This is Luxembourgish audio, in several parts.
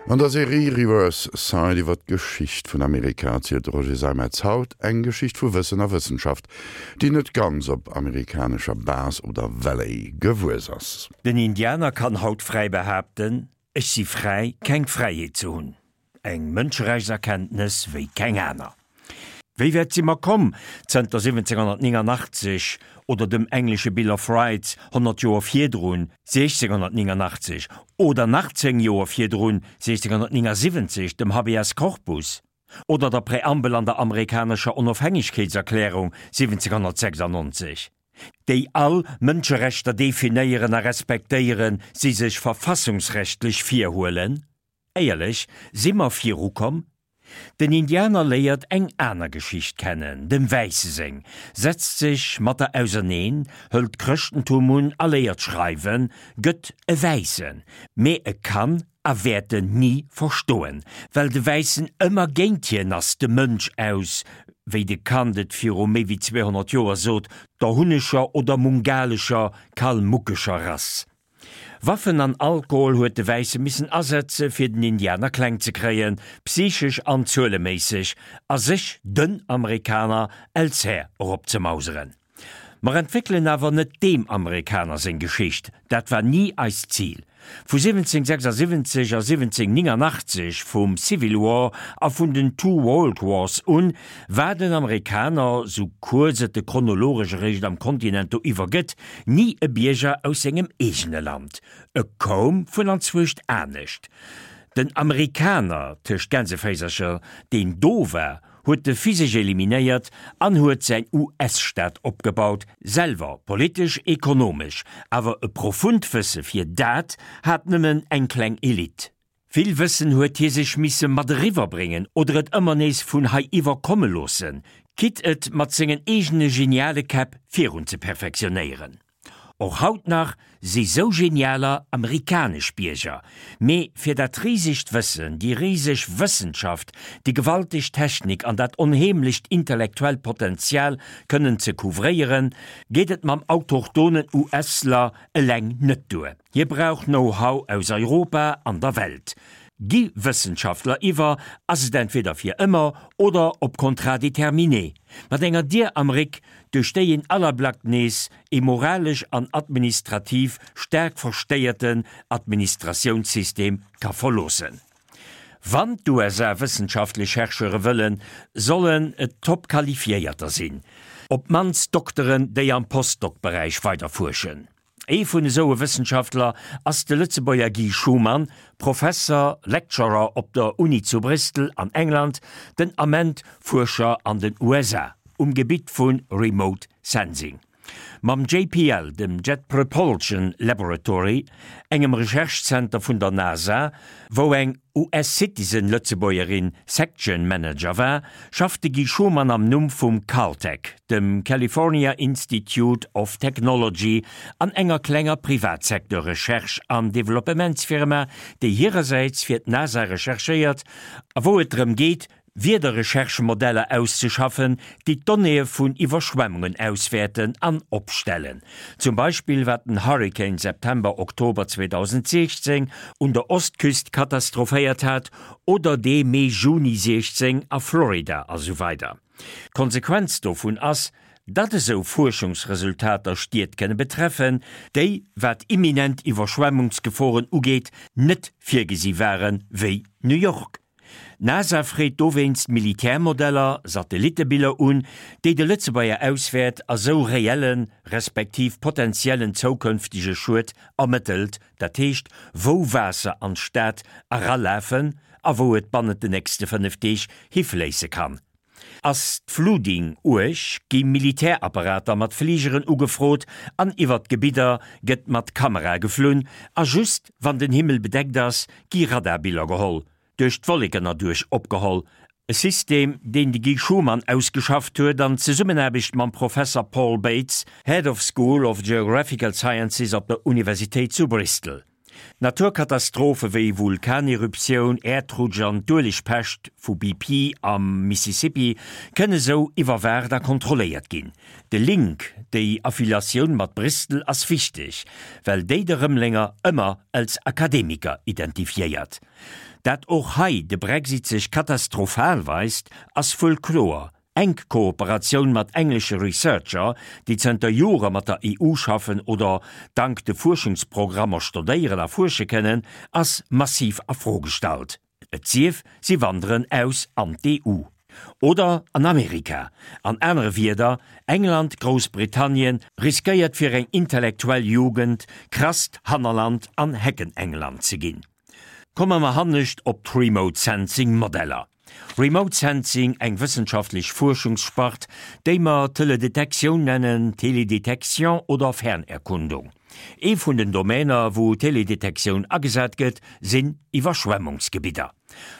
An der Serie Reverse Side iwwer d'Geschicht vun Amerika erzielt de Roger Seimetz haut eng Geschicht vu Wëssen a Wëssenschaft, déi net ganz op amerikanescher Base oder Valley gewuess ass. Den Indianer kann haut fräi behaapten, Ech si fräi, keng Fräiheet ze hunn. Eng Mënscherechtserkenntnes wéi keng aner. Wéi wäit si mer komm zënter 1789 oder dem englesche Bill of Rights 100 Joer virdrun, 1689, oder nach 10 Joer virdrun, 1679, dem Habeas Corpus oder der Präambel an der amerikanescher Onofhängegkeetserklärung 1796, déi all Mënscherechter definéieren a respektéieren, si sech verfassungsrechtlech virhuelen? Éierlech, si mer virukomm? Den Indianer léiert eng aner Geschicht kennen, dem Wäisse seng, setzt sech mat der auserneen, hëlt d'Chrëschtentum un a léiert schreiwen, gëtt e Wäissen, mee e kann a wäert en ni verstoen, well de Wäissen ëmmer géint hien ass, de Mënsch aus, wéi de Kant et viru méi wéi 200 Joer sot, der hunnescher oder mungalescher, kalmuckescher Rass. Waffen an Alkohol huet de Wäisse missen asetze fir den Indianer kleng ze kréien, psychesch an zueleméisseg, a sech den Amerikaner els Här eropzemauseren. Mer entwéckelen awer net deem Amerikaner seng Geschicht, dat war ni eist Zil. Vu 1776 a 1789, vum Civil War a vun den Two World Wars un, war den Amerikaner, sou kuerz et e chronologesch eréischt am Kontinent do iwwer gëtt, ni e Bierger aus sengem eegene Land. E koum vun anzwuescht anescht. Den Amerikaner, tëscht Gänseféisercher, deen do war, huet de physesch eliminéiert an huet säin US-Staat opgebaut, selwer politesch, ekonomesch, awer e profunt Wësse fir dat hat nëmmen eng kleng Elite. Vill Wëssen huet hie sech misse mat eriwwer bréngen oder et ëmmer nees vun hei iwwer komme loossen, quitte et mat sengen eegene geniale Käpp virun ze perfektionéieren. Och haut nach si sou genialer amerikanesch Bierger, mee fir dat risegt Wëssen, déi riseg Wëssenschaft, déi gewalteg Technik an dat onheemlecht intellektuellt Potenzial kënnen ze couvréieren, geet et mam autochtonen US-ler eleng net duer. Hie brauch Know-how aus Europa an der Welt. Gi Wëssenschaftler iwwer, ass et entweder fir ëmmer oder op Contrat déterminé, mat enger Dier am Réck, duerch déi een Allerblack nees ee moralesch an administrativ staark verstéierten Administratiounssystem ka verloossen. Wann d'USA wëssenschaftlech Chercheure wëllen, sollen et top qualifiéierter sinn, op d'mannst Dokteren, déi am Postdoc-Beräich weiderfuerschen. Ee vun esou e Wëssenschaftler ass de Lëtzebuerger Guy Schumann, Professer, Lecturer op der Uni zu Bristol an England, den Ament Fuerscher an den USA um Gebitt vu Remote Sensing. Mam JPL, dem Jet Propulsion Laboratory, engem Recherche-Zenter vun der NASA, wou eng US-Citizen-Lëtzebuergerin Section Manager war, schafft de Guy Schumann am Numm vum Caltech, dem California Institute of Technology, an enger klenger Privatsecteur-Recherche an Developpementsfirma, déi hirersäits fir d'NASA recherchéiert a wou et drëm geet, Wiederrecherchemodeller auszeschaffen, déi d'Donnéeë vun Iwwerschwemmungen auswäerten an opstellen. Zum Beispill wat den Hurrikan September, Oktober 2016 un der Ostküst katastrophéiert hat oder dee Mee, Juni 16 a Florida a sou weider. D'Konsequenz dovun ass, datt esou Fuerschungsresultater Stied kënne betreffen, déi, wat imminent Iwwerschwemmungsgeforen ugeet, net virgesi waren, wéi New York. D'NASA freet dowéinst Militärmodeller, Satellittebiller un, déi de Lëtzebuerger auswäert a sou reellen, respektiv potentiellen zoukënftege Schued ermëttelt, dat heescht wou Waasser an d'Stad eralafen a wou et bannent de nächste 5 Deeg hifléisse kann. Ass d'Flooding uerg, gi Militärapparater mat Fligeren ugefrot an iwwert d'Gebidder gëtt mat Kamerae geflunn a just wann den Himmel bedeckt ass, gi Radarbiller geholl, duerch d'Wolleken erduerch opgeholl. E System, deen de Guy Schumann ausgeschafft huet an Zesummenaarbecht mam Professer Paul Bates, Head of School of Geographical Sciences op der Universitéit zu Bristol. Naturkatastrophe wéi Vulkaneruptioun, Äerdrutsch an d'Uelegpescht vu BP am Mississippi kënne sou iwwerwaacht a kontrolléiert ginn. De Link, déi Affiliatioun mat Bristol ass wichteg, well déi de Rëmelenger ëmmer als Akademiker identifiéiert. Dat och hei de Brexit sech katastrophal weist, ass wuel kloer. Enk Kooperatioun mat englesche Researcher, déi zënter Jore mat der EU schaffen oder dank de Fuerschungsprogrammer stodéieren a fuersche kënnen, ass massiv a Fro gestallt. Et sief, si wanderen aus an d'EU. Oder an Amerika. An anere Wierder, England, Groussbritannien, riskéiert fir eng intellektuell Jugend krasst Hannerland an Heckenengland ze ginn. Komme mer hannescht op d'Remote Sensing Modeller. Remote Sensing, eng wëssenschaftlech Fuerschungsspart, déi mer Teledetektioun nennen, Télédétection oder Fernerkundung. Ee vun den Domäner, wou Teledetektioun agesat gëtt, sinn Iwwerschwemmungsgebidder.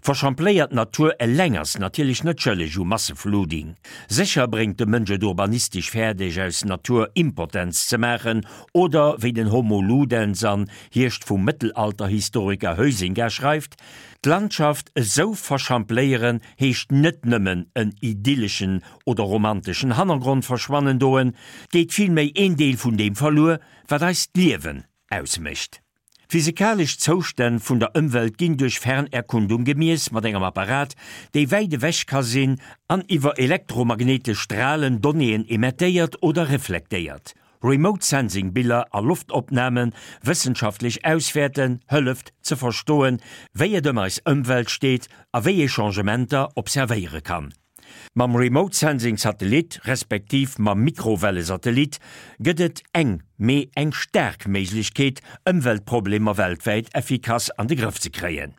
Verschampléiert Natur eleng ass natierlech net schëlleg u Masseflooding. Sécher bréngt de Mënsch et urbanistesch fäerdeg, aus Natur Impotenz ze maachen oder, wéi den Homo Ludens an Hierscht vum Mëttelalterhistoriker Huizinga schreift, D'Landschaft esou verschampléieren heescht net nëmmen en idylleschen oder romanteschen Hannergrond verschwannen doen, 't geet villméi een Deel vun deem verluer, wat eist Liewen ausmécht. D'physikalesch Zoustänn vun der Ëmwelt ginn duerch Fernerkundung gemiess mat engem Apparat, dee wäit ewech ka sinn an iwwer elektromagnetesch Stralen Donnéeën emettéiert oder reflektéiert. Remote Sensing Biller a Loftopnamen wëssenschaftlech auswäerten, hëlleft ze verstoen, wéi et ëm eis Ëmwelt steet a wéi ee Changementer observéiere kann. Mam Remote Sensing Satellit respektiv mam Mikrowellesatellit gëtt et eng, mee eng staark Méiglechkeet, Ëmweltproblemer weltwäit effikass an de Grëff ze kréien.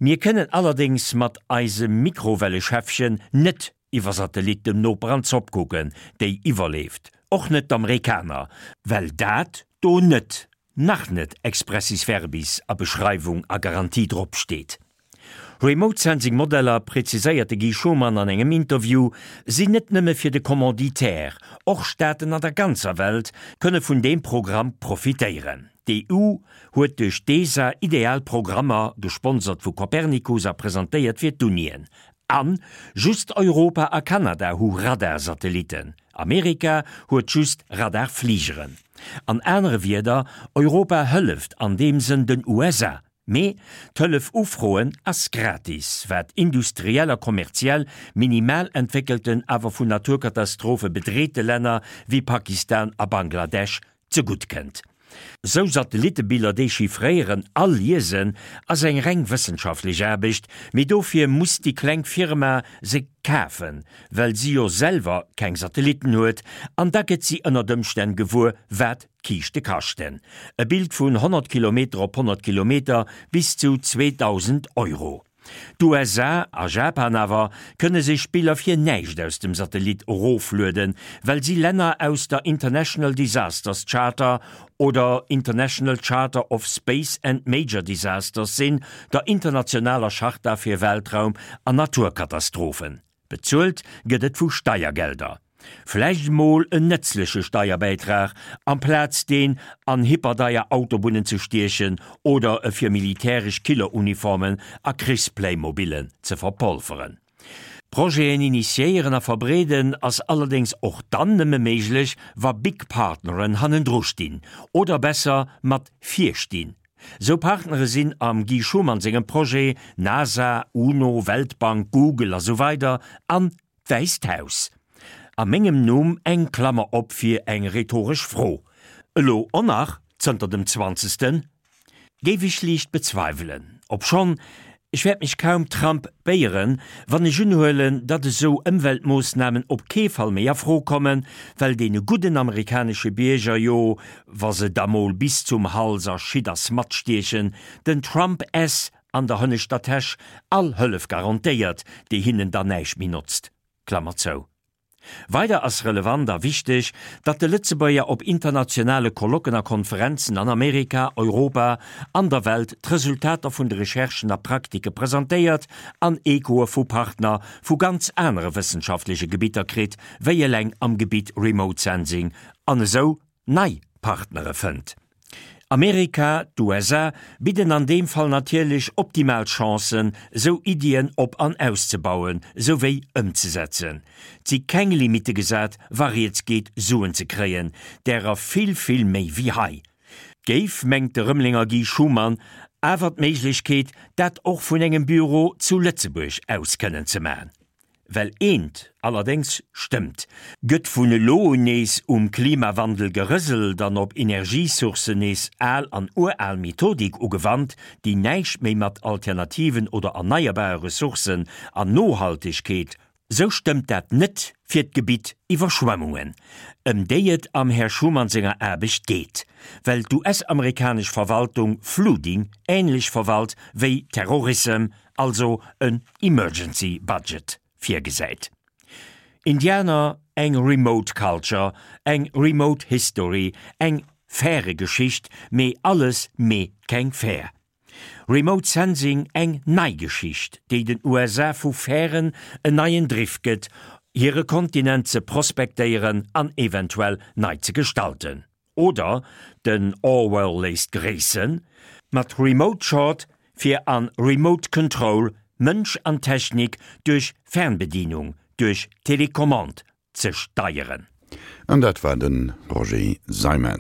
Mir kënnen allerdéngs mat eisem Mikrowelleschäffchen net iwwer Satellit dem Noper an d'Zopp kucken, déi iwwerleeft, och net d'Amerikaner, well dat do net, nach net expressis verbis a Beschreiwung a Garantie drop steet. Remote Sensing Modeller, preziséiert de Guy Schumann an engem Interview, sinn net nëmme fir de Commanditaire, och Staaten an der ganzer Welt kënne vun deem Programm profitéieren. D'EU huet duerch d'ESA ideal Programmer, gesponsert vu Copernicus a presentéiert fir d'Unien. An just Europa a Kanada hu Radarsatellitten, Amerika huet just Radarfligeren. An anere Wierder, Europa hëlleft an deem Sënn den USA. Mee d'Hëllef ufroen ass gratis, wat industriell a kommerziell minimal entwéckelten, awer vun Naturkatastrophe bedreete Länner wéi Pakistan a Bangladesch zegutt kënnt. Sou Satellittebiller dechiffréieren a liesen ass eng reng wëssenschaftlech Aarbecht, mee dofir muss déi kleng Firma se kafen, well si jo selwer keng Satellitten huet, an da gëtt si ënnert Ëmstänn gewuer, wat d'Kiischte kaschten. E Bild vun 100 Kilometer op 100 Kilometer bis zu 2.000 Euro. D'USA a Japan awer kënne sech Biller fir näischt aus dem Satellit eroflueden, well si Länner aus der International Disasters Charter oder International Charter of Space and Major Disasters sinn, der internationaler Charta fir Weltraum an Naturkatastrophen. Bezuelt gëtt et vu Steiergelder. Vläicht mol en nëtzleche Steierbäitrag, amplaz deen an hyperdeier Autobunnen ze stiechen oder e fir militäresch Killeruniformen a Krichsplaymobilen ze verpolferen. Projeten initiéieren a verbreeden ass allerdéngs och dann nëmme méiglech, wa big Partneren hannendru stinn, oder besser mat vir stinn. Sou Partnere sinn am Guy Schumann sengem Projet NASA, UNO, Weltbank, Google a sou weider an d'Wäisst Haus. A mengem Numm eng Klammer op fir eng rhetoresch Fro. Elo och nach zënter dem zwanzegsten? Géif ech liicht bezweiwelen. Obschonn, ech wäert mech kaum Trump béieren, wann ech unhuelen, datt esou Ëmweltmoossnamen op kee Fall méi a Fro kommen, well deene gudden amerikanesche Bierger jo, wa se da mol bis zum Hals a Schitt a Smatt stiechen, den Trump s an der hënneschter Täsch all Hëllef garantéiert, déi hinnen dann näischt méi notzt. Klammer zou. Weider ass relevant a wichteg, datt de Lëtzebuerger op internationale Colloquen a Konferenzen an Amerika, Europa an der Welt d'Resultater vun de Recherchen a Praktike presentéiert an Echoe vu Partner vu ganz anere wëssenschaftleche Gebitter kritt, wéi eleng am Gebitt Remote Sensing, an esou nei Partnere fënnt. Amerika, d'USA, bidden an deem Fall natierlech optimal Chancen, esou Iddien op an auszebauen, souwéi ëmzesetzen. 't si keng Limitte gesat, wa rieds geet, Suen ze kréien, därer vill, vill méi wéi hei. 't géif, mengt de Rëmelenger Guy Schumann, awer d'Méiglechkeet, dat och vun engem Büro zu Lëtzebuerg aus kënnen ze man. Well eent allerdéngs stëmmt, Gëtt vun elo un nees um Klimawandel gerëselt an op Energiesourcen nees al an ural Methodik ugewannt, déi näischt méi mat alternativen oder erneierbare Ressourcen an Nohaltegkeet, sou stëmmt dat net fir d'Gebitt Iwwerschwemmungen, ëm déi et am Här Schuman senger Aarbecht geet, well d'US-amerikanesch Verwaltung Flooding änlech verwalt wéi Terrorissem, also en Emergency Budget virgesäit. Indianer, eng remote culture, eng remote history, eng faire Geschicht, mee alles mee keng fair. Remote Sensing, eng nei Geschicht, déi den USA vu fären en neien Driff gëtt, hire Kontinent ze prospektéieren an eventuell nei ze gestalten. Oder den Orwell léisst gréissen, mat Remote Short fir an Remote Control Mënsch an Technik duerch Fernbedienung, duerch Telecommande ze steieren. An dat war de Roger Seimetz.